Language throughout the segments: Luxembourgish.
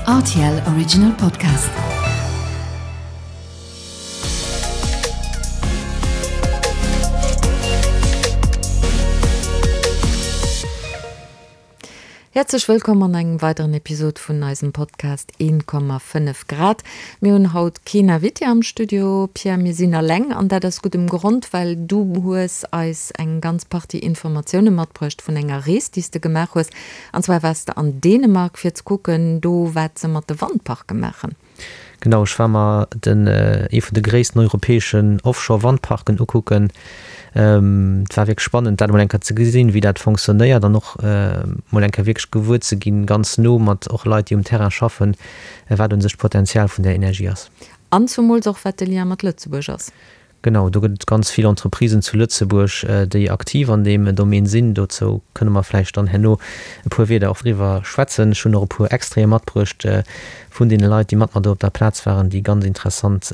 Rtl Original Podcast. Häerzlech wëllkomm an engem weideren Episod vun eisem Podcast 1,5 Grad. Mir hunn haut keen Invité am Studio, Pierre, mir sinn alleng an dat aus guddem Grond, well du hues eis eng ganz Partie Informatioune matbruecht vun enger Rees, déi s de gemaach hues. An zwar waars de an Dänemark fir ze kucken do, wat se mat de Wandparke maachen. Genau, ech war mer den ee vun de gréissten europäeschen Offshore-Wandparken ukucken. Et war wierklech spannend, dat emol eng Kéier ze gesinn, wéi dat fonctionnéiert an och mol eng Kéier wierklech gewuer ze ginn, ganz no mat och Leit, déi um Terrain schaffen, wat un sech d'Potenzial vun där Energie ass. An zumools och, wat de Lien mat Lëtzebuerg ass. Genau, do gëtt et ganz vill Entreprisen zu Lëtzebuerg, déi aktiv an deem Domaine sinn. Dozou kënne mer vläicht dann herno e puer Wierder och driwwer schwätzen. Ech hunn och e puer Extraite matbruecht vun deene Leit, déi mat mer do op der Plaz waren, déi ganz interessant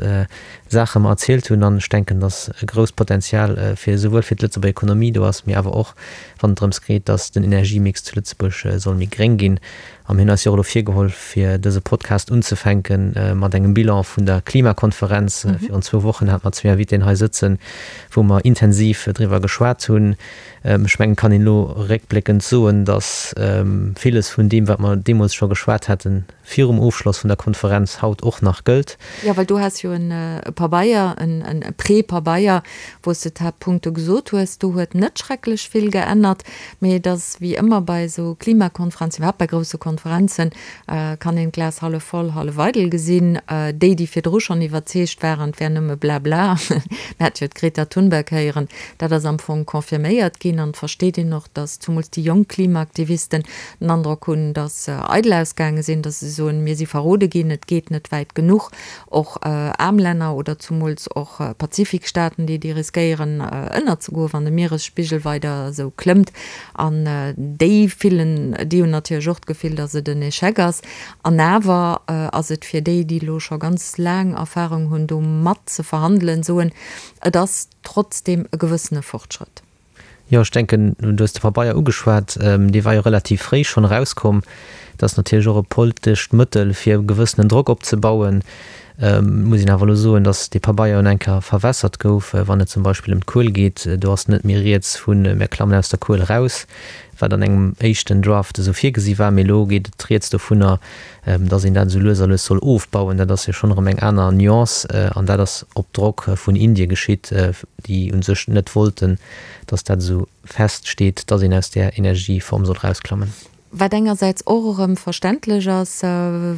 Saache mer erzielt hunn. An ech denken, dass e grousst Potenzial fir esouwuel fir d'Lëtzebuerger Ekonomie do ass, mee awer och wann et drëms geet, dass den Energiemix zu Lëtzebuerg soll méi gréng ginn. A mir hunn eis jo och elo virgeholl, fir dëse Podcast unzefänke mat engem Bilan vun der Klimakonferenz. Virun zwou Wochen hate mer zwee Invitéen hei sëtzen, wou mer intensiv driwwer geschwat hunn. Ech mengen, et kann een elo réckbléckend soen, datt villes vun deem, wat mer deemools scho geschwat haten, virum Ofschloss vun der Konferenz, haut och nach gëllt. Jo, well du has jo e Pabeier, e Prépabeier, wou s de d'Haaptpunkte gesot hues. Do huet net schrecklech vill geännert. Mee et ass wéi ëmmer bei esou Klimakonferenzen, iwwerhaapt bei grousse Konferenzen, kann een d'Glas hallef voll, hallef eidel gesinn. Déi, déi virdru schonn iwwerzeegt waren, et wär nëmme Blabla, mir hate jo d'Greta Thunberg héieren, dat ass am Fong confirméiert ginn. An et versteet een och, datt zumools déi jonk Klimaaktivisten den Androck hunn, datt se eidel ausgaange sinn, datt se soen, mir si verrode ginn, et geet net wäit genuch. Och aarm Länner oder zumools och Pazifikstaaten, déi déi riskéieren ënnerzegoen, wann de Mieresspigel weider esou klëmmt. An déi fillen, déi hunn natierlech och d'Gefill, datt et en Echec ass. An awer ass et fir déi, déi elo scho ganz laang Erfarung hunn, do mat ze verhandelen, soen, et ass trotzdeem e gewëssene Fortschrëtt. Jo, ech denken, du hues de Pabeier ugeschwat, dee war jo relativ fréi schonn erauskomm. Dat ass natierlech och e poltescht Mëttel, fir e gewëssenen Drock opzebauen. Et muss een awer elo soen, datt dee Pabeier un eng Kéier verwässert gouf, wann et zum Beispill ëm d'Kuel geet. Do ass net méi rieds vu mir klammen aus der Kuel eraus, wat an engem éischten Draft esou virgesi war, mee elo geet et rieds dovunner, datt een dat esou lues a lues soll ofbauen. Dat ass jo schonn erëm eng aner Nuance an dat ass op Drock vun Indie geschitt, déi u sech net wollten, datt dat esou feststeet, datt een aus där Energieform soll erausklammen. Wat engersäits och erëm verständlech ass,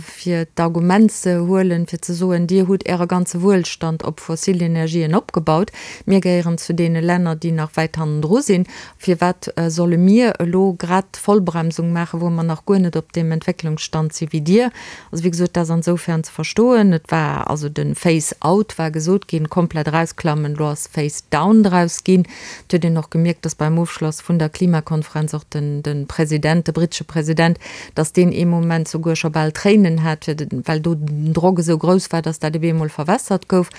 fir d'Argument ze huelen, fir ze soen, Dir hutt Äre ganze Wuelstand op fossil Energien opgebaut, mir gehéieren zu deene Länner, déi nach wäit hannendru sinn, firwat solle mir elo grad d'Vollbremsung maachen, wou mer nach guer net op deem Entwécklungsstand si wéi Dir? Also, wéi gesot, dat ass ansoufern ze verstoen. Et war also de Phase out war gesot ginn, komplett erausklammen. Elo ass Phase down draus ginn. Et huet een och gemierkt, dass beim Ofschloss vun der Klimakonferenz och den, de President, de brittesche President, dass deen ee Moment souguer scho bal Tréinen hat, fir de, well do den Drock esou grouss war, dass dat op eemol verwässert gouf.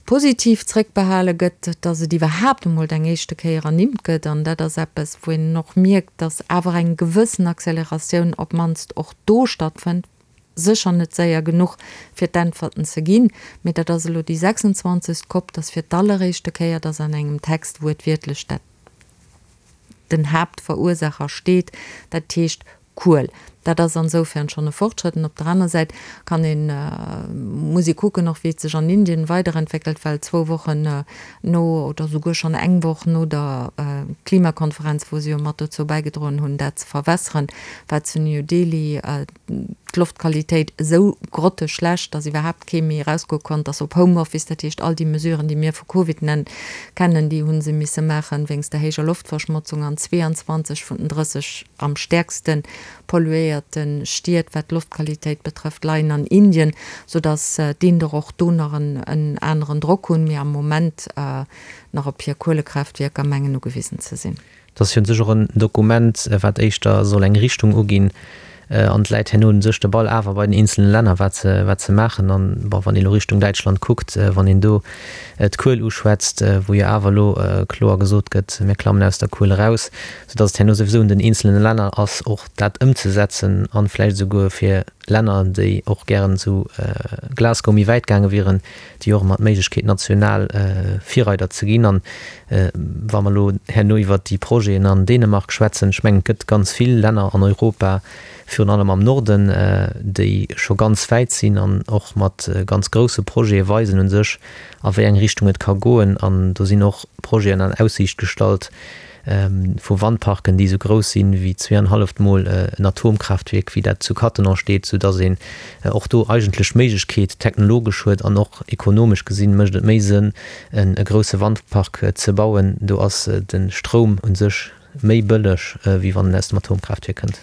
Positiv zréckbehale gëtt, dass et iwwerhaapt emol eng éischte Kéier ernimmt gëtt. An dat ass eppes, wou een och mierkt, dass awer eng gewëssen Acceleratioun op d'mannst och do stattfënnt. Sécher net séier genuch, fir d'Äntwerten ze ginn, mee dat ass elo déi 26. Cop, dass fir d'alleréischte Kéier, dass an engem Text wuertwiertlech dat den Haaptverursacher steet, dat heescht Kuel. Dat ass ansoufern schonn e Fortschrëtt. An op der aner Säit kann een, muss ee kucken och, wéi et sech an Indien weiderentwéckelt, well zwou Wochen no oder souguer schonn eng Woch no der Klimakonferenz, wou se jo mat dozou bäigedroen hunn, dat ze verwässeren, war zu New Delhi d'Loftqualitéit esou grotteschlecht, dass iwwerhaapt kee méi erausgoe konnt, dass op Homeoffice, dat heescht all déi Mesuren, déi mir vu Covid nennen, kennen, déi hu se misse maachen wéinst der héijer Loftverschmotzung an 22 vun den 30 am stäerkste polluéierte Stied, wat d'Loftqualitéit betrëfft, leien an Indien, soudass d'Inder och do nach en aneren Drock hunn, mee am Moment nach op hir Kuelekraaftwierker mengen ugewisen ze sinn. Et ass jo un sech och en Dokument, wat éischter soll eng Richtung uginn, an et läit herno un sech de Ball awer bei den eenzelne Länner, wat se, wat se maachen. An, bon, wann ee lo Richtung Däitschland kuckt, wann een do d'Kuel uschwätzt, wou jo awer elo kloer gesot gëtt, mir klammen aus der Kuel eraus, soudass et herno souwisou un den eenzelne Länner ass, och dat ëmzesetzen an vläicht esouguer fir. Länner, déi och gären zu Glasgow méi wäit gaange wieren, déi och ëmmer d'Méiglechkeet national Virreider ze ginn. An wa mer elo herno iwwert déi Projeten an Dänemark schwätzen, ech mengen, et gëtt ganz vill Länner an Europa, virun allem am Norden, déi scho ganz wäit sinn an och mat ganz grousse Projete weisen u sech, a wéi eng Richtung et ka goen. An do sinn och Projeten an Aussiicht gestallt vu Wandparken, déi esou grouss sinn wéi zweeanhalleft Mol en Atomkraaftwierk, wéi dat zu Cattenom steet, soudass een och do eigentlech d'Méiglechkeet technologesch huet an och ekonomesch gesinn mécht et méi Sënn, e grousse Wandpark ze bauen. Do ass de Stroum u sech méi bëlleg, wéi wann en aus dem Atomkraaftwierk kënnt.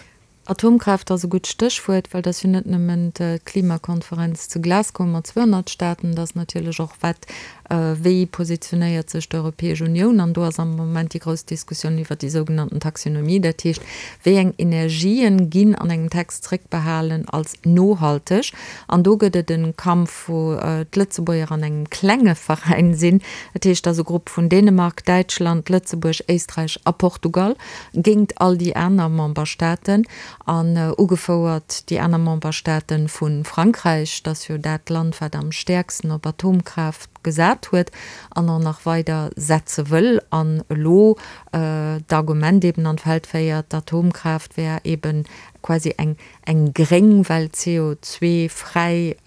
Atomkraaft ass e gutt Stéchwuert, well et ass jo net nëmmen d'Klimakonferenz zu Glasgow mat 200 Staaten, et ass natierlech och, wat, wéi positionéiert sech d'Europäesch Unioun? An do ass am Moment déi grouss Diskussioun iwwert déi sougenannten Taxonomie, dat heescht, wéi eng Energien ginn an engem Text zréckbehalen als nohalteg? An do gëtt et e Kampf, wou d'Lëtzebuerger an engem klenge Veräin sinn, dat heescht, et ass e Grupp vun Dänemark, Däitschland, Lëtzebuerg, Éisträich a Portugal, géingt all déi aner Memberstaaten an ugefouert déi aner Memberstaaten vu Frankräich, dat ass jo dat Land, wat am stäerksten op Atomkraaft gesat huet an och nach weider setze wëll an elo d'Argument eben an d'Feld féiert, d'Atomkraaft wär eben quasi eng eng gréng, well CO2-fräi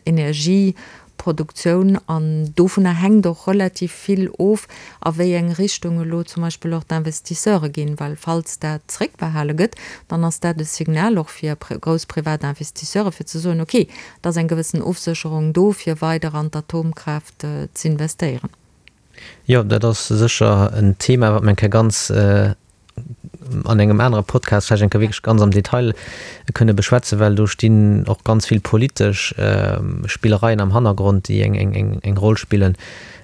Energie Produktioun an dovunner hänkt och relativ vill of, a wéi eng Richtung elo zum Beispill och d'Investisseure ginn, well falls dat zréckbehale gëtt, dann ass dat e Signal och fir grouss privat Investisseure fir ze soen, okay, et ass eng gewëssen Ofsécherung do fir weider an d'Atomkraaft z'investéieren. Jo, dat ass sécher en Thema, wat mer eng Kéier ganz an engem anere Podcast vläicht eng Kéier wierklech ganz am Detail kënne beschwätzen, well do stinn och ganz vill politesch Spillereien am Hannergrond, déi eng, eng, eng Roll spillen.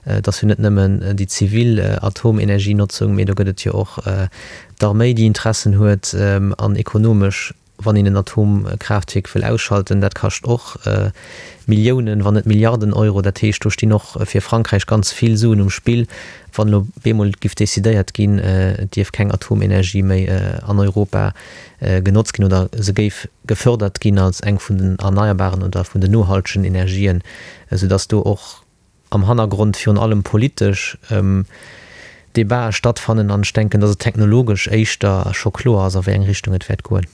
Et ass jo net nëmmen déi zivil Atomenergienotzung, mee do gëtt et jo och d'Arméi, déi Interessen huet an ekonomesch Wann een en Atomkraaftwierk wëll ausschalten, dat kascht och Milliounen, wann net Milliarden Euro. Dat heescht, do stinn och fir Frankräich ganz vill Suen um Spill, wann elo bemol giff decidéiert ginn, et dierf keng Atomenergie méi an Europa genotzt ginn oder se géif gefördert ginn als eng vun den erneierbaren oder vun den nohaltegen Energien, soudass do och am Hannergrond virun allem politesch Debatë stattfannen an ech denken, datt et technologesch éischter scho kloer ass, a wéi eng Richtung et wäert goen.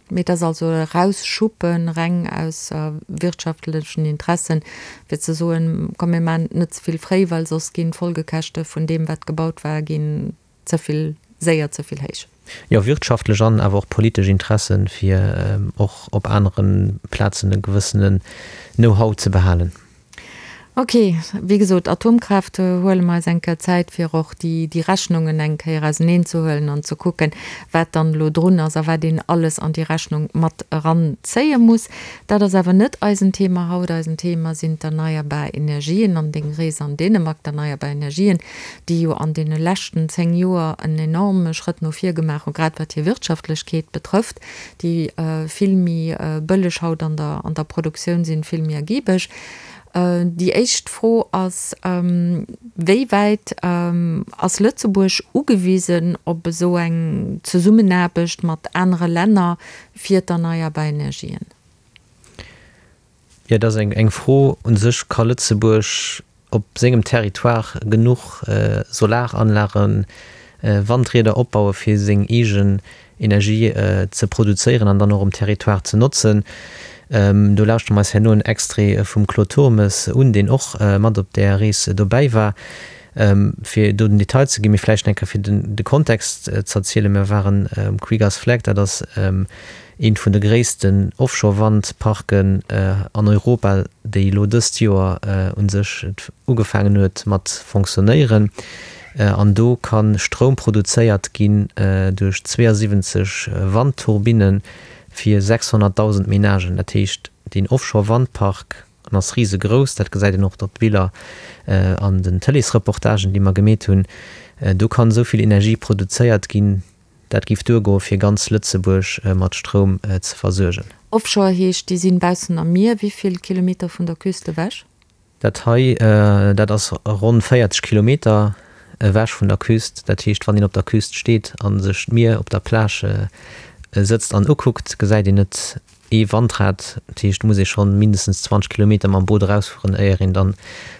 Mee et ass also e Erausschuppen, reng aus wirtschaftlechen Interessen, fir ze soen, komm mir maachen et net ze vill fréi, well soss ginn d'Folgekäschte vun deem, wat gebaut war, ginn ze vill séier ze vill héich. Jo, wirtschaftlech an awer och politesch Interessen, fir och op anere Plazen e gewëssenen Know-how ze behalen. Ok, wéi gesot, Atomkraaft, huele mer eis eng Kéier Zäit, fir och déi, déi Rechnungen eng Kéier auseneenzehuelen an ze kucken, wat dann elo drun ass a wat een alles an déi Rechnung mat eranzéie muss. Dat ass awer net eisen Thema haut. Eisen Thema sinn d'erneierbar Energien an deng Rees an Dänemark, d'erneierbar Energien, déi jo an deene leschten 10 Joer en enorme Schrëtt no vir gemaach hunn, grad wat hir Wirtschaftlechkeet betrëfft, déi vill méi bëlleg haut an der, an der Produktioun sinn, vill méi ergibeg. Déi éischt Fro ass, Wéi wäit ass Lëtzebuerg ugewisen op esou eng Zesummenaarbecht mat anere Länner fir d'erneierbar Energien? Jo, dat ass eng Fro. U sech ka Lëtzebuerg op sengem Territoire genuch Solaranlagen, Wandrieder opbaue fir seng eegen Energie ze produzéieren an dann och um Territoire ze notzen. Do lauschtere mer eis herno en Extrait vum Claude Turmes un, deen och mat op där Rees dobäi war. Fir do den Detail ze ginn, mee vläicht eng Kéier fir de Kontext z'erzielen, Mir waren um Kriegers Flak, dat ass eent vun de gréissten Offshore-Wandparken an Europa, déi elo dëst Joer u sech ugefaangen huet mat fonctionnéieren. An do ka Stroum produzéiert ginn duerch 72 Wandturbinne fir 600.000 Menagen. Dat heescht, deen Offshore-Wandpark, en ass risegrouss, dat gesäit een och op de Biller an den Tëleesreportagen, déi mer gemeet hunn, do kann esou vill Energie produzéiert ginn, Dat géif duergoe fir ganz Lëtzebuerg mat Stroum ze versuergen. Offshore heescht, déi sinn baussen am Mier. Wéi vill Kilometer vun der Küst ewech? Dat hei, dat ass ronn 40 Kilometer ewech vun der Küst. Dat heescht, wann een op der Küst steet a sech d'Mier op der Plage sëtzt an ukuckt, gesäit een et. Ee Wandrad, dat heescht, muss ee schonn mindestens 20 Kilometer mam Boot erausfueren, éier een dann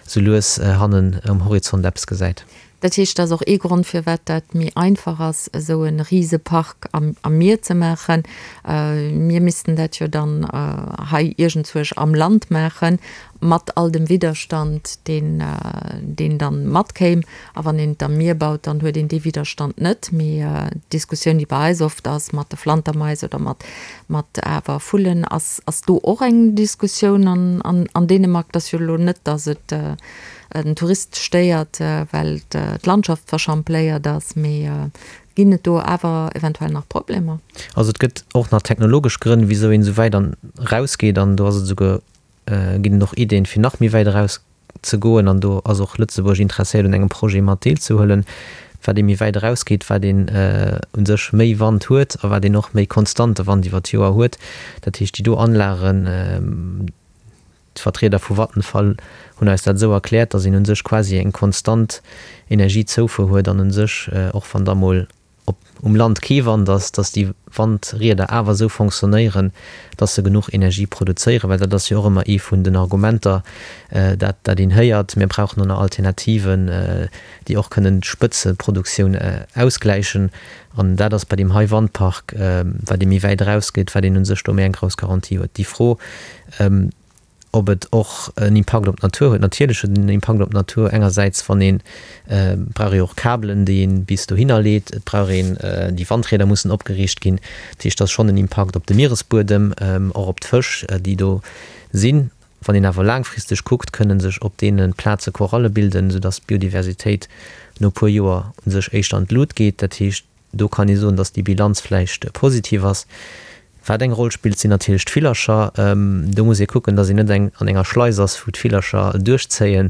sou lues hannen um Horizont eppes gesäit. Dat heescht, dat ass och ee Grond, firwat dat méi einfach ass, esou e Risepark am Mier ze maachen. Mir missten dat jo dann hei iergendzuerch am Land maachen, mat all dem Widderstand, deen, deen dann matkéim. A wann een et am Mier baut, dann huet een dee Widderstand net. Mee d'Diskussioun, déi bei eis oft ass mat de Flantermais oder mat, mat awer Vullen, ass, ass do och eng Diskussioun an, an, an Dänemark. Et ass jo elo net, datt et den Tourist stéiert, well d'Landschaft verschampléiert ass, mee ginn et do awer eventuell nach Problemer? Also et gëtt och nach technologesch Grënn, wisou een esou wäit an erausgeet an do ass et esouguer, ginn et och Ideen, fir nach méi wäit eraus ze goen an do ass och Lëtzebuerg interesséiert un engem Projet mat deelzehuelen. Wat ee méi wäit erausgeet, wat een u sech méi Wand huet a wat een och méi konstante Wand iwwer d'Joer huet. Dat heescht déi do Anlagen, d'Vertrieder vu Vattenfall hunn eis dat esou erkläert, datt een u sech quasi eng konstant Energiezoufuer huet an u sech och wann da mol op um Land kee Wand ass, dass déi Wandrieder awer esou fonctionnéieren, dass se genuch Energie produzéieren, well dat ass jo och ëmmer ee vun den Argumenter, dat dat een héiert, mir brauchen och nach Alternativen, déi och kënnen d'Spëtzeproduktioun ausgläichen. An dat ass bei deem hei Wandpark, wat ee méi wäit erausgeet, wat een u sech do méi eng grouss Garantie huet. Déi Fro, Ob et och en Impakt op d'Natur huet? Natierlech huet et en Impakt op d'Natur. Engersäits, wann een, et brauch ee jo och Kabelen, déi een bis dohinner leet, et brauch een, déi Wandrieder mussen opgeriicht ginn. Dat heescht, et ass schonn en Impakt op de Mieresbuedem, och op d'Fësch, déi do sinn. Wann een awer laangfristeg kuckt, kënne sech op deene Plaze Koralle bilden, soudass d'Biodiversitéit no e puer Joer u sech éischter an d'Lut geet. Dat heescht, Do kann ee soen, datt déi Bilanz vläicht positiv ass. Wat eng Roll spillt, sinn natierlech d'Villercher. Do muss ee kucken, datt een net eng an enger Schleis ass, wou d'Villercher duerchzéien,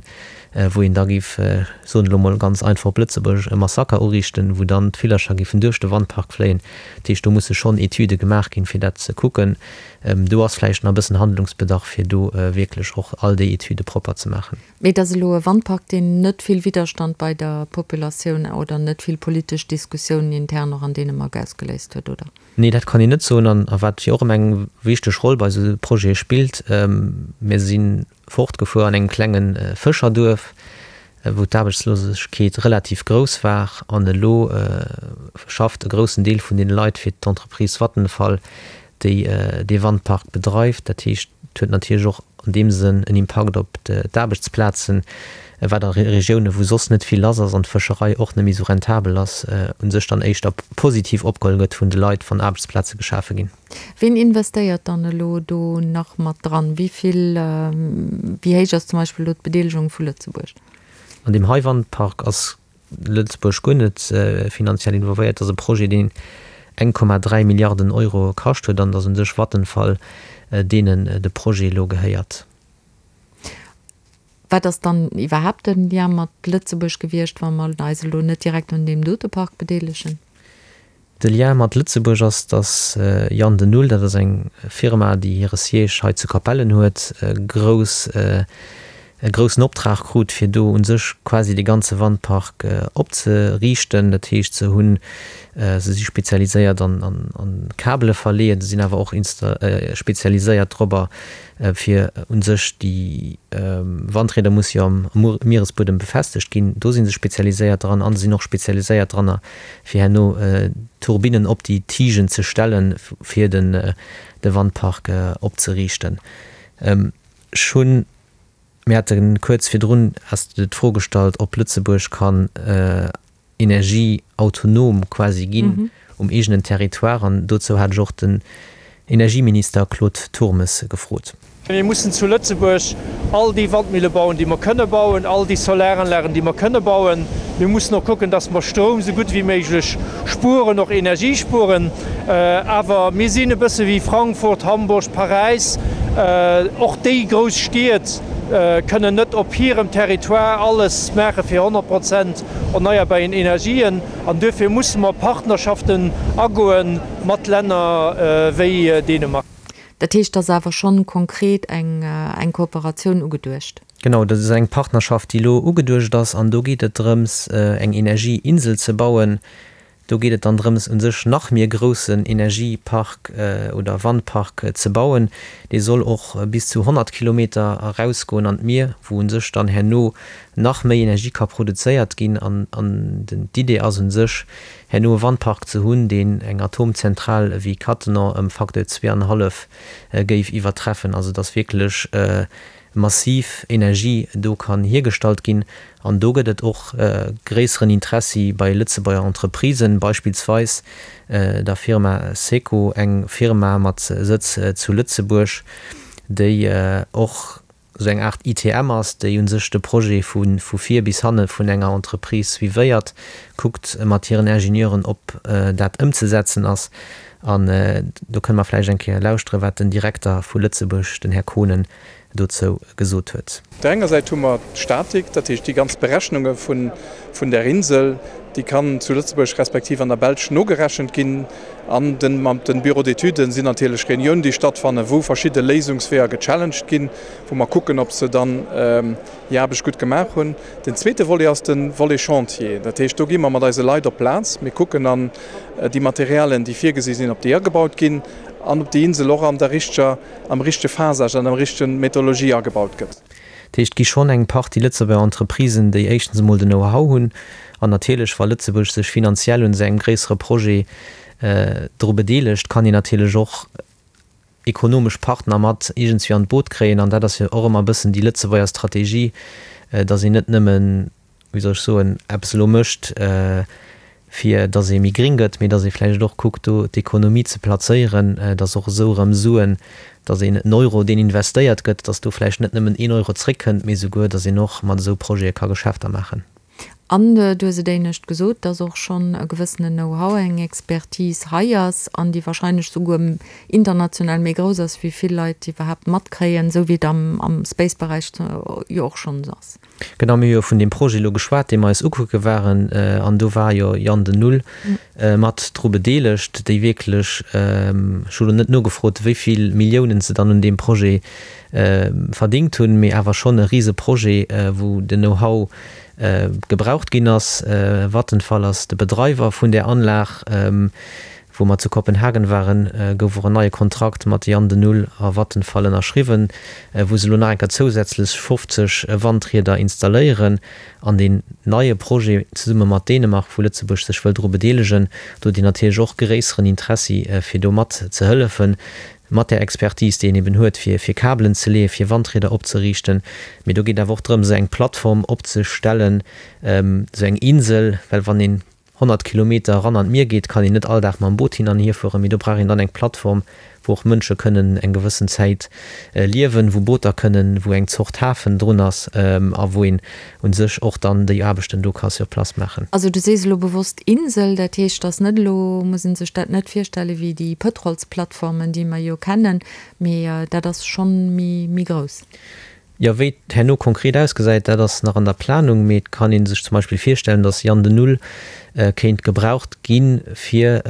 wou een da géif, soen elo mol ganz einfach op Lëtzebuergesch, e Massaker uriichten, wou dann d'Villercher géifen duerch de Wandpark fléien. Dat heescht, do musse schonn Etüde gemaach ginn, fir dat ze kucken. Do ass vläicht nach e bëssen Handlungsbedarf, fir do wierklech och all déi Etüde propper ze maachen. Mee et ass elo e Wandpark, deen net vill Widderstand bei der Populatioun oder net vill politesch Diskussiounen intern och an Dänemark ausgeléist huet, oder? Nee, dat kann een net soen. An a wat jo och ëmmer eng wichteg Roll bei esou Projete spillt, Mir si fortgefuer an engem klenge Fëscherduerf, wou d'Aarbechtslosegkeet relativ grouss war. An elo schafft e groussen Deel vun deene Leit fir d'Entreprise Vattenfall, déi dee Wandpark bedreift. Dat heescht, et huet natierlech och an deem Sënn en Impakt op d'Aarbechtsplazen, wat a Regiounen, wou soss net vill lass ass an d'Fëscherei och net méi esou rentabel ass, u sech dann éischter positiv opgeholl gëtt vun de Leit, wann Aarbechtsplaze geschafe ginn. Ween investéiert dann elo do nach mat dran? Wéi vill, wéi héich ass zum Beispill elo d'Bedeelegung vu Lëtzebuerg? An deem hei Wandpark ass Lëtzebuerg guer net finanziell involvéiert. Dat ass e Projet, deen 1,3 Milliarden Euro kascht huet an et ass un sech Vattenfall, deenen de Projet elo gehéiert. Wat ass dann iwwerhaapt de Lien mat Lëtzebuerg gewiescht, wa mer eis elo net direkt un deem dote Park bedeelegen? De Lien mat Lëtzebuerg ass, dass Jan de Nul, dat ass eng Firma, déi hire Siège hei zu Capellen huet, grouss, e groussen Optrag krut, fir do u sech quasi de ganze Wandpark opzeriichten. Dat heescht, se hunn, se si spezialiséiert an Kabele verleeën, se sinn awer och spezialiséiert dorobber, fir u sech déi Wandrieder musse jo am Mieresbuedem befestegt ginn, do si se spezialiséiert dran an se sinn och spezialiséiert dranner, fir herno Turbinnen op déi Tigen ze stellen, fir de Wandpark opzeriichten. Ech hunn, mir hate kuerz virdrun, has de d'Fro gestallt, ob Lëtzebuerg kann energieautonom quasi ginn um eegenen Territoire, an dozou hat ech och den Energieminister Claude Turmes gefrot. Mir mussen zu Lëtzebuerg all déi Wandmille bauen, déi mer kënne bauen, all déi Solaranlagen, déi mer kënne bauen. Mir mussen och kucken, dass mer Stroum esou gutt wéi méiglech spueren, och Energie spueren. Awer mir sinn e bësse wéi Frankfurt, Hamburg, Paräis. Och déi grouss Stied kënnen net op hirem Territoire alles maache fir 100 Prozent erneierbaren Energien. An duerfir musse mer Partnerschaften agoe mat Länner wéi Dänemark. Dat heescht, et ass awer schonn konkret eng eng Kooperatioun ugeduecht? Genau, dat ass eng Partnerschaft, déi elo ugeduecht ass. An do geet et drëms, eng Energieinsel ze bauen. Do geet et dann drëms, u sech nach méi e groussen Energiepark oder Wandpark ze bauen. Dee soll och bis zu 100 Kilometer erausgoen an d'Mier, wou u sech dann herno nach méi Energie ka produzéiert ginn. An d'Idee ass u sech, herno e Wandpark ze hunn, deen eng Atomzentral ewéi Cattenom ëm Facteur zweeanhallef géif iwwertreffen. Also dass wierklech massiv Energie do kann hiergestallt ginn. An do gëtt et och gréisseren Interessi bei Lëtzebuerger Entreprisen, beispillsweis der Firma Seco, eng Firma mat Sëtz zu Lëtzebuerg, déi och esou eng Aart ITM ass, déi u sech de Projet vu vir bis hanne vun enger Entreprise suivéiert, kuckt mat hiren Ingenieuren, ob dat ëmzesetzen ass. An do kënne mer vläicht eng Kéier lauschteren, wat den Direkter vu Lëtzebuerg, den Här Kohnen, dozou gesot huet. Op der enger Säit hu mer d'Statik, dat heescht déi ganz Berechnunge vun där Insel, déi kann zu Lëtzebuerg respektiv an der Belsch nogerechent ginn. An mat de Bureaux d'études sinn natierlech Reuniounen, déi stattfannen, wou verschidde Léisungsweeër gechallenged ginn, wou mer kucken, ob se dann hir Aarbecht gutt gemaach hunn. Den zweete Volet ass de Volet Chantier. Dat heescht, do gi mer mat eise Leit op d'Plaz, mir kucken an déi Materialien, déi virgesi sinn, ob déi agebaut ginn an ob déi Insel och an der richteger, am richtege Phasage an der richtegen Methodologie agebaut gëtt. Dat heescht, et gi schonn eng Partie Lëtzebuerger Entreprisen, déi éischtens emol den Know-how hunn an natierlech, wa Lëtzebuerg sech finanziell un esou engem gréissere Projet dru bedeelegt, kann een natierlech och ekonomesch Partner mat iergendswéi an d'Boot kréien. An dat ass jo och ëmmer e bëssen déi Lëtzebuerger Strategie, datt een net nëmmen, wéi soll ech soen, eppes elo mécht, fir datt ee méi gring gëtt, mee datt ee vläicht och kuckt, do d'Ekonomie ze plazéieren, datt och esou erëm Suen, datt een en Euro, deen investéiert gëtt, datt do vläicht net nëmmen een Euro zréckkënnt, mee souguer, datt een och mat esou Projete ka Geschäfter maachen. An du hues et éinescht gesot, dass och schonn e gewëssenen Know-how, eng Expertise hei ass an déi wahrscheinlech souguer international méi grouss ass, wéi vill Leit iwwerhaapt matkréien, esou wéi et am Space-Beräich jo och schonns ass. Genau, mir hu jo vun deem Projet elo geschwat, dee mer eis ukucke waren, an do war jo Jan de Null mat dru bedeelegt, déi wierklech, ech hu lo net nogefrot, wéi vill Milliounen se dann un deem Projet verdingt hunn, mee awer schonn e rise Projet, wou den Know-how gebraucht ginn ass. Vattenfall ass de Bedreiwer vun där Anlag. Wou mer zu Kopenhagen waren, gouf och en neie Kontrakt mat Jan de Null a Vattenfall ënnerschriwwen, wou se elo nach eng Kéier zousätzlech 50 Wandrieder installéieren. An deen neie Projet zesumme mat Dänemark, wou Lëtzebuerg sech wëll dru bedeelegen, do huet een natierlech och gréisseren Interessi, fir do mat ze hëllefen. Mat där Expertise, déi een eben huet, fir fir Kabelen ze leeën, fir Wandrieder opzeriichten. Mee do geet awer och drëm, esou eng Plattform opzestellen, esou eng Insel, well wann een 100 Kilometer eran an d'Mier geet, kann een net all Dag mam Boot hin an hierfueren, mee do brauch een dann eng Plattform, wou och Mënsche kënnen eng gewëssen Zäit liewen, wou Booter kënnen, wou eng Zort Hafen drun ass a wou een u sech och dann déi Aarbechten do ka sur place maachen. Also du sees elo bewosst Insel, dat heescht, dass net elo, muss ee sech dat net virstelle wéi déi Pëtrolsplattformen, déi mer jo kennen, mee dat ass schonn méi, méi grouss. Jo, wéi et herno konkret ausgesäit, dat ass nach an der Planung, mee et kann ee sech zum Beispill virstellen, dass Jan de Null kéint gebraucht gi fir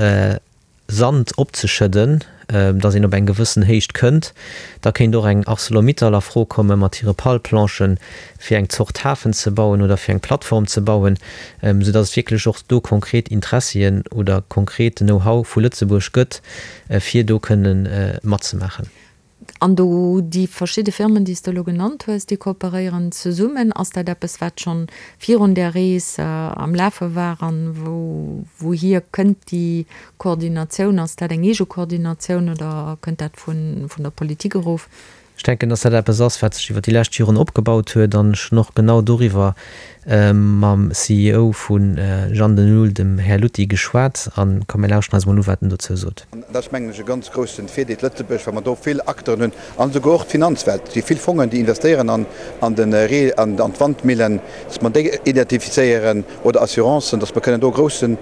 Sand opzeschëdden, datt een op eng gewëssen Héicht kënnt. Da kéint och eng Arcelor-Mittal a Fro komme mat hire Palplanchen, fir eng Zort Hafen ze bauen oder fir eng Plattform ze bauen, soudatt et wierklech och do konkret Interessien oder konkret Know-how vu Lëtzebuerg gëtt, fir do kënne matzemaachen. An do déi verschidde Firmen, déi s de elo genannt hues, déi kooperéieren zesummen. Ass dat eppes, wat schonn virun där Rees am Lafe war? An wou, wouhier kënnt déi Koordinatioun? Ass dat eng eege Koordinatioun oder kënnt dat vun, vun der Politik erof? Ech denken, dass dat eppes ass, wat sech iwwer déi lescht Joren opgebaut huet. An ech hunn och genau doriwwer mam CEO vu Jan de Nul, dem Här Lutti, geschwat. An komm, mir lauschten eis emol u, wat en dozou sot. An dat ass, mengen ech, e ganz groussen Virdeel Lëtzebuerg, well mer do vill Acteuren hunn an esouguer och d'Finanzwelt. Et si vill Fongen, déi investéieren an an de Ree an an d'Wandmillen, dass mer déi identifizéieren oder Assurancen, dass mer kënnen do e grousse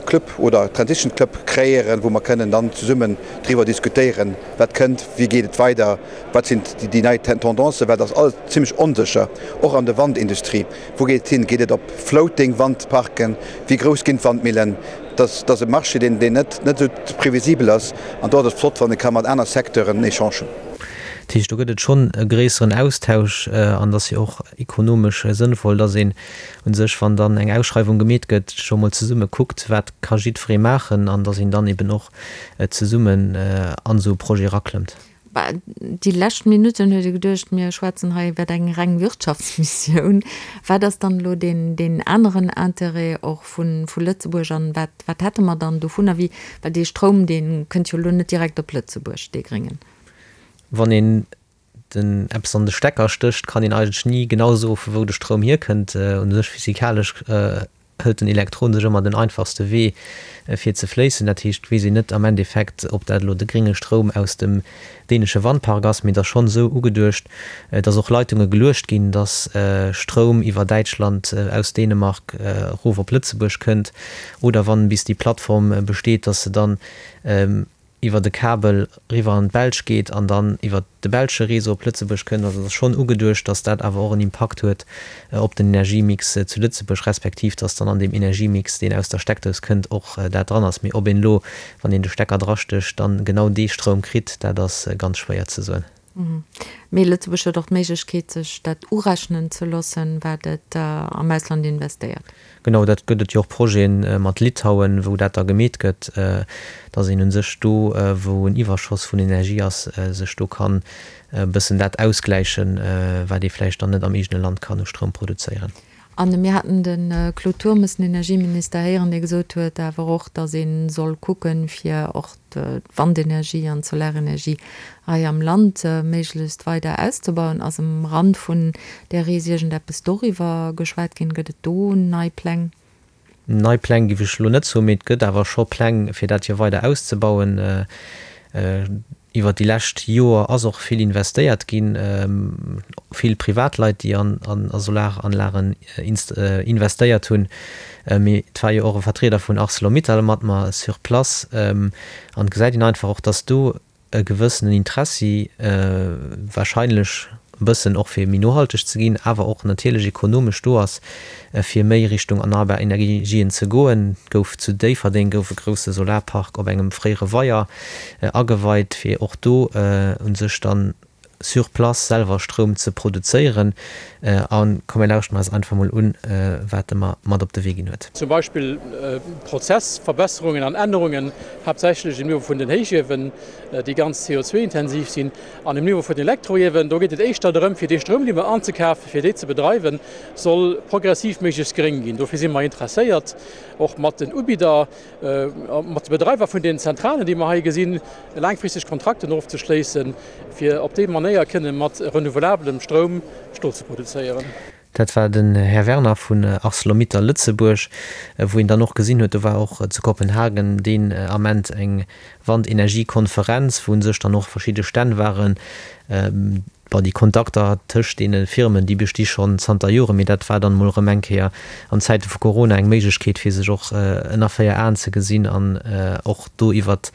Club oder Transition Club kreéieren, wou mer kënnen dann zesummen driwwer diskutéieren, wat kënnt, wéi geet et weider, wat sinn déi nei Tendancen, well et ass alles zimlech onsécher, och an der Wandindustrie. Wou geet et hin? Geet et op floating Wandparken? Wéi grouss ginn d'Wandmillen? Dat ass e Marché, deen net esou previsibel ass. An do ass et flott, wann ee ka mat aner Secteuren en Echange hunn. Dat heescht, do gëtt et schonn e gréisseren Austausch an et ass jo och ekonomesch sënnvoll, dass een u sech, wann dann eng Ausschreiwung gemeet gëtt, scho mol zesumme kuckt, wat ka jiddweree maachen an dass een dann eben och zesummen an esou e Projet eraklëmmt. Bah, déi lescht Minutten huet ee geduecht, mir schwätzen hei iwwer eng reng Wirtschaftsmissioun. Wat ass dann elo deen, deen aneren Intérêt och vu, vu Lëtzebuerg an wat, wat hätte mer dann dovunner? Wéi, well dee Stroum, dee kënnt jo elo net direkt op Lëtzebuerg, dee gréngen. Wann een den eppes an de Stecker stécht, kann een eigentlech ni genau soe vu wou de Stroum hierkënnt. U sech physikalesch hëlt den Elektron sech ëmmer den einfachste Wee fir ze fléissen. Dat heescht, et weess een net am Endeffekt, ob dat elo de grénge Stroum aus dem dänesche Wandpark ass, mee et ass schonn esou ugeduecht, datt och Leitunge geluecht ginn, datt Stroum iwwer Däitschland aus Dänemark erof op Lëtzebuerg kënnt oder wann bis déi Plattform besteet, datt se dann iwwer e Kabel riwwer an d'Belsch geet an dann iwwer de belsche Réseau op Lëtzebuerg kënnt. Also et ass schonn ugeduecht, datt dat awer och en Impakt huet op den Energiemix zu Lëtzebuerg, respektiv datt dann an deem Energiemix, deen aus der Steckdous kënnt, och dat dran ass. Mee ob een elo, wann een de Stecker drastécht, dann genau dee Stroum kritt, dat ass ganz schwéier ze soen. Mee Lëtzebuerg huet och d'Méiglechkeet, sech dat urechnen ze loossen, wat et am Ausland investéiert. Genau, dat gëtt et jo och Projete mat Litauen, wou dat da gemeet gëtt, datt een u sech do, wou en Iwwerschoss vun Energie ass, sech do kann e bëssen dat ausgläichen, wat ee vläicht dann net am eegene Land kann u Stroum produzéieren. A mir haten de Claude Turmes, den Energieminister, héieren, dee gesot huet awer och, datt ee soll kucken, fir och d'Wandenergie an d'Solarenergie hei am Land méiglechst weider auszebauen. Ass um Rand vun där Rees iergendeppes doriwwer geschwat ginn? Gëtt et do nei Pläng? Nei Pläng géif ech elo net soen, mee et gëtt awer scho Pläng, fir dat hier weider auszebauen. Iwwer déi lescht Joer ass och vill investéiert ginn, vill Privatleit, déi an Solaranlagen investéiert hunn. Mee et war jo och e Vertrieder vun Arcelor-Mittal mat mer sur place. An et gesäit een einfach och, dass do e gewëssenen Interessi wahrscheinlech e bëssen och fir méi nohalteg ze ginn, awer och natierlech ekonomesch do ass, fir méi Richtung erneierbar Energien ze goen. Gouf zu Déifferdeng gouf e grousse Solarpark op engem fréiere Weier ageweit, fir och do u sech dann sur place selwer Stroum ze produzéieren. A komm mir lauschteren eis einfach mol un, wat e mer mat op de Wee ginn huet. Zum Beispill Prozessverbesserungen an Ännerungen, haaptsächlech um Niveau vun den Héichiewen, déi ganz CO2-intensiv sinn. An um Niveau vun den Elektroiewen, do geet et éischter drëm, fir dee Stroum, dee mer anzekafen, fir dee ze bedreiwen, soll progressiv méiglechst gréng ginn. Dofir si mer interesséiert, och mat den Ubidder, mat de Bedreiwer vun den Zentralen, déi mer hei gesinn, laangfristeg Kontrakten ofzeschléissen, fir op déi Manéier kënne mat renouvelabelem Stroum Stol ze produzéieren. Dat war den Här Werner vun Arcelor-Mittal Lëtzebuerg, wou een dann och gesinn huet, do war och zu Kopenhagen deen Ament eng Wandenergiekonferenz, wou u sech dann och verschidde Stänn waren. Bon, déi Kontakter tëscht deene Firmen, déi besti schonn zanter Joren, mee dat war dann emol erëm eng Kéier an Zäite vu Corona eng Méiglechkeet, fir sech och ënner 4 Aen ze gesinn an och do iwwert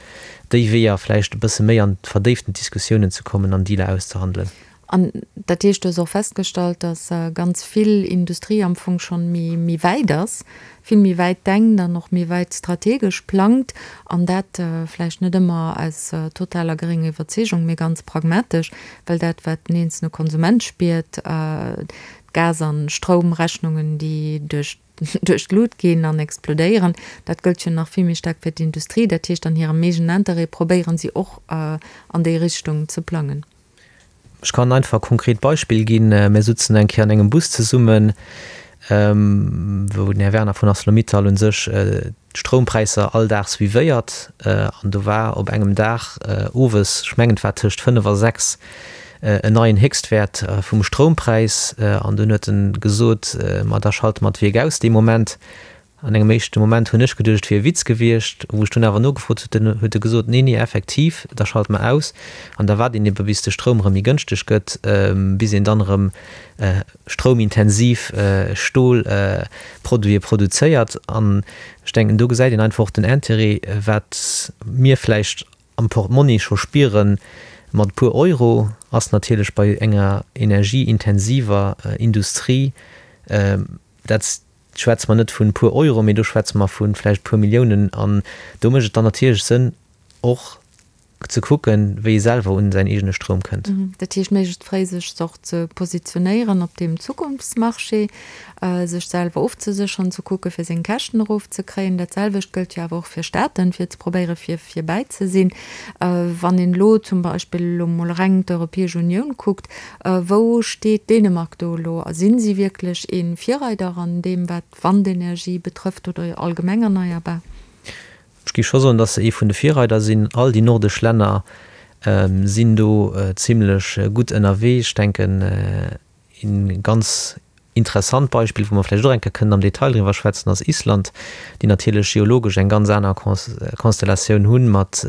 déi Weeër vläicht e bësse méi an verdéiften Diskussiounen ze kommen an Dealer auszehandelen. An dat heescht, du hues och festgestallt, datt ganz vill Industrie am Fong schonn méi, méi wäit ass, vill méi wäit denkt an och méi wäit strategesch plangt, an dat vläicht net ëmmer aus totaler grénger Iwwerzeegung, mee ganz pragmatesch, well dat, wat den eenzelne Konsument spiert, d'Gas an Stroumrechnungen, déi duerch duerch d'Lut ginn an explodéieren, dat gëllt jo nach vill méi staark fir d'Industrie. Dat heescht, an hirem eegenen Interêt probéieren si och an déi Richtung ze plangen. Ech kann einfach e konkret Beispill ginn. Mir sutzen eng Kéier an engem Bus zesummen, wou den Här Werner vun Arcelor-Mittal u sech d'Stroumpräisser all Dag suivéiert. An do war op engem Dag owes, ech mengen et war tëscht 5 a 6, en neien Héchstwäert vum Stroumpräis. An dunn huet en gesot, Ma da schalte mer d'Wierk aus dee Moment. An engem éischte Moment hunn ech geduecht, et wier e Witz gewiescht. Wou ech dunn awer nogefrot hunn, huet e gesot, Nee, nee, effektiv, da schalt mer aus. An da waart een ebe bis de Stroum erëm méi gënschteg gëtt, bis een dann erëm stroumintensiv Stolproduite produzéiert. An ech denken, do gesäit een einfach och den Intérêt, wat mir vläicht am Portmonni scho spieren, mat e puer Euro, ass natierlech bei enger energieintensiver Industrie dat, schwätze mer net vun e puer Euro, mee do schwätze mer vu vläicht e puer Milliounen. An do mécht et dann natierlech Sënn, och. Ze kucken, wéi e selwer un säin eegene Stroum kënnt. Dat heescht, méiglechst fréi sech och ze positionéieren op deem Zukunftsmarché, sech selwer ofzesécheren, ze kucke fir seng Käschten erofzekréien. Dat selwecht gëllt jo awer och fir Staaten, fir ze probéiere fir virbäi ze sinn. Wann een elo zum Beispill elo mol reng d'Europäesch Unioun kuckt, wou steet Dänemark do elo? A sinn si wierklech ee Virreider an deem wat d'Wandenergie betrëfft oder allgemeng erneierbar? Ech géif scho soen, dass se ee vun de Virreider sinn. All déi nordesch Länner sinn do zimlech gutt ënnerwee. Ech denken, ee ganz interessant Beispill, wou mer vläicht och eng Kéier kënnen am Detail driwwer schwätzen, ass Island, déi natierlech geologesch eng ganz aner Konstellatioun hu mat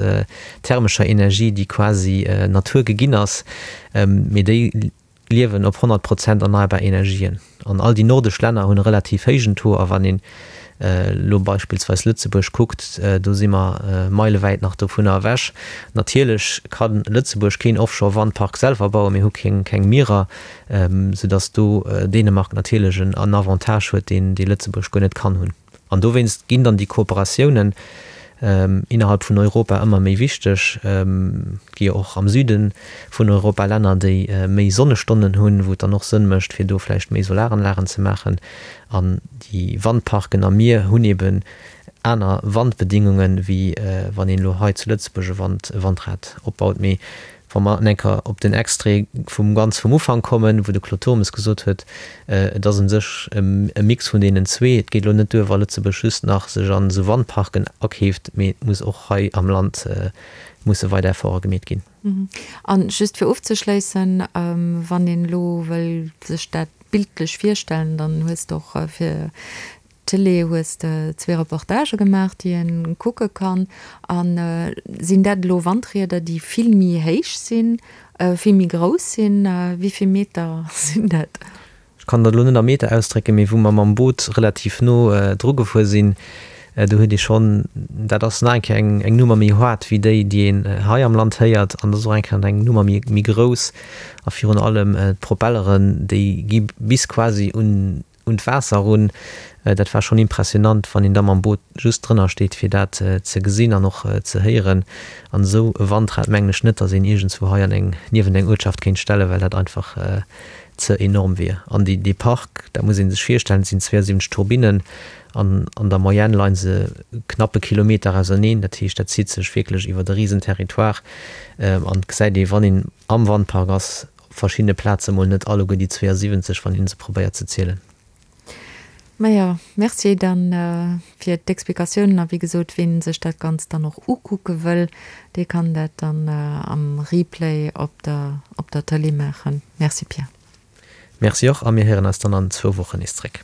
thermescher Energie, déi quasi Natur geginn ass, mee déi liewen op 100 Prozent erneierbar Energien. An all déi nordesch Länner hunn e relativ héijen Taux. A wann een elo beispillsweis Lëtzebuerg kuckt, do si mer meilewäit nach dovunner ewech. Natierlech ka Lëtzebuerg keen Offshore-Wandpark selwer bauen, mir hu keng Mierer, soudass do Dänemark natierlech en Avantage huet, deen Lëtzebuerg guer net kann hunn. An dowéinst ginn dann déi Kooperatiounen innerhalb vun Europa ëmmer méi wichteg. Et gi jo och am Süde vun Europa Länner, déi méi Sonnestonnen hunn, wou et dann och Sënn mécht, fir do vläicht méi Solaranlagen ze maachen. An déi Wandparken am Mier hunn eben aner Wandbedingungen, wéi wann een elo hei zu Lëtzebuerg e Wandrad opbaut. Mee Wa mer en Enker op den Extrait vum ganz vum Ufank kommen, wou de Claude Turmes gesot huet, et ass u sech e Mix vun deenen zwee. Et geet elo net duer, wa Lëtzebuerg just nach sech an esou Wandparken akeeft, mee et muss och hei am Land musse weider Efforte gemeet ginn. A just fir ofzeschléissen, wann een elo wëll sech dat bildlech virstellen, dann hues de och fir D'Tëlee hues de zwee Reportagë gemaach, déi een kucke kann. A sinn dat elo Wandrieder, déi vill méi héich sinn, vill méi grouss sinn? Wéi vill Meter sinn dat? Ech kann dat elo net a Meter ausdrécken, mee wou mer mam Boot relativ no dru gefuer sinn, do huet ee schonn, dat ass nach eng Kéier eng Nummer méi haart wéi déi, déi een hei am Land héiert, an dat ass och eng Kéier eng Nummer méi grouss. A virun allem d'Propelleren, déi gi bis quasi un un d'Waasser erun. Dat war schonn impressionant, wann een da mam Boot just drënner steet, fir dat ze gesinn an och ze héieren. An esou e Wandrad mengen ech net, datt een iergendswou hei an eng, niewent eng Uertschaft kéint stellen, well dat einfach ze enorm wier. An déi, dee Park, dat muss ee sech virstellen, et sinn 72 Turbinnen an an der Moyenne leie se knapp e Kilometer auserneen. Dat heescht, dat zitt sech wierklech iwwert e risen Territoire an et gesäit ee, wann een am Wandpark ass, Op verschiddene Plaze mol net alleguer déi 72, wann een se probéiert ze zielen. Majo, merci dann fir d'Explikatiounen. A wéi gesot, ween sech dat Ganzt dann och ukucke wëll, dee kann dat dann am Replay op der op der Tëlee maachen. Merci Pierre. Merci och a mir héieren eis dann an zwou Wochen nees zréck.